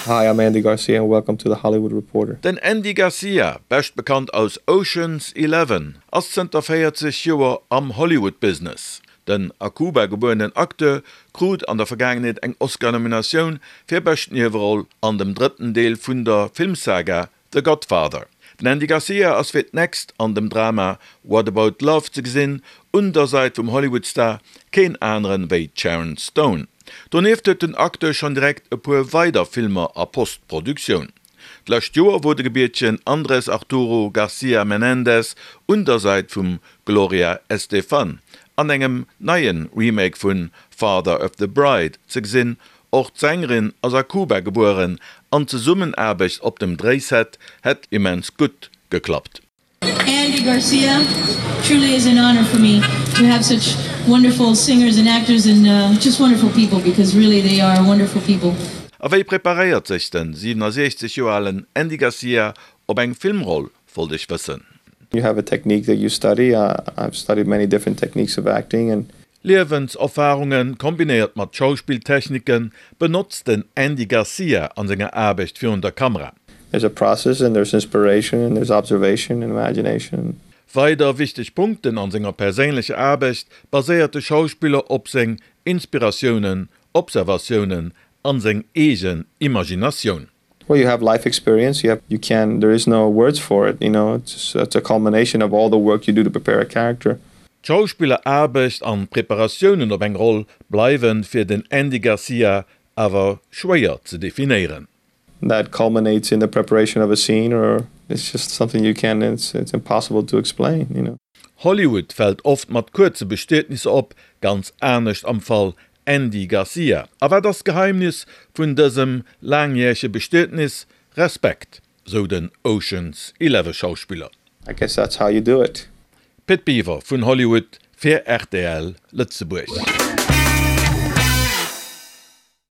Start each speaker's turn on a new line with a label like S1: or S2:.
S1: Hi, I'm Andy Garcia and welcome to the Hollywood Reporter.
S2: Den Andy Garcia, bescht bekannt aus Ocean's Eleven, ass zënter 40 Joer am Hollywood-Business. Den a Kuba gebuerenen Acteur krut an der Vergaangenheet eng Oscar-Nominatioun fir bescht Nieweroll an dem drëtten Deel vun der Filmsaga The Godfather. Den Andy Garcia ass fir d'nächst an dem Drama What About Love ze gesinn, un der Säit vum Hollywood-Star keen aneren wéi d'Sharon Stone. Donieft huet den Acteur schonn direkt e puer weider Filmer a Post-Produktioun. D'lescht Joer wor de gebiertegen Andrés Arturo Garcia Menéndez un der Säit vum Gloria Estefan an engem neie Remake vun Father of the Bride ze gesinn. Och d'Sängerin ass a Kuba gebueren an d'Zesummenaarbecht op dem Dréiset hätt immens gutt geklappt.
S3: Andy Garcia, truly is an honor for me to have such wonderful singers and actors and just wonderful people because really they are wonderful people.
S2: A wéi preparéiert sech den 67 Joer alen Andy Garcia op eng Filmroll, wollt ech wëssen.
S1: You have a technique that you study, I've studied many different techniques of acting and.
S2: Liewenserfarunge kombinéiert mat Schauspilltechnike benotzt den Andy Garcia an senger Aarbecht virun der Kamera.
S1: There's a process and there's inspiration and there's observation and imagination.
S2: Weider wichteg Punkten an senger perséinlecher Aarbecht baséiert de Schauspiller op seng Inspiratiounen, Observatiounen an seng eegen Imaginatioun.
S1: Well you have life experience, you have, you can, there is no words for it, you know, it's it's a culmination of all the work you do to prepare a character.
S2: D'Schauspilleraarbecht an d'Preparatiounen op eng Roll bleiwen fir den Andy Garcia awer schwéier ze definéieren.
S1: That culminates in the preparation of a scene or it's just something you can't, it's it's impossible to explain, you know.
S2: Hollywood fält oft mat kuerze Bestietnisser op, ganz anescht am Fall Andy Garcia. A wat ass d'Geheimnis vun dësem laangjärege Bestietnis? Respekt, sou den Ocean's Eleven Schauspiller.
S1: I guess that's how you do it.
S2: Pit Biwer vun Hollywood fir rtl Lëtzebuerg.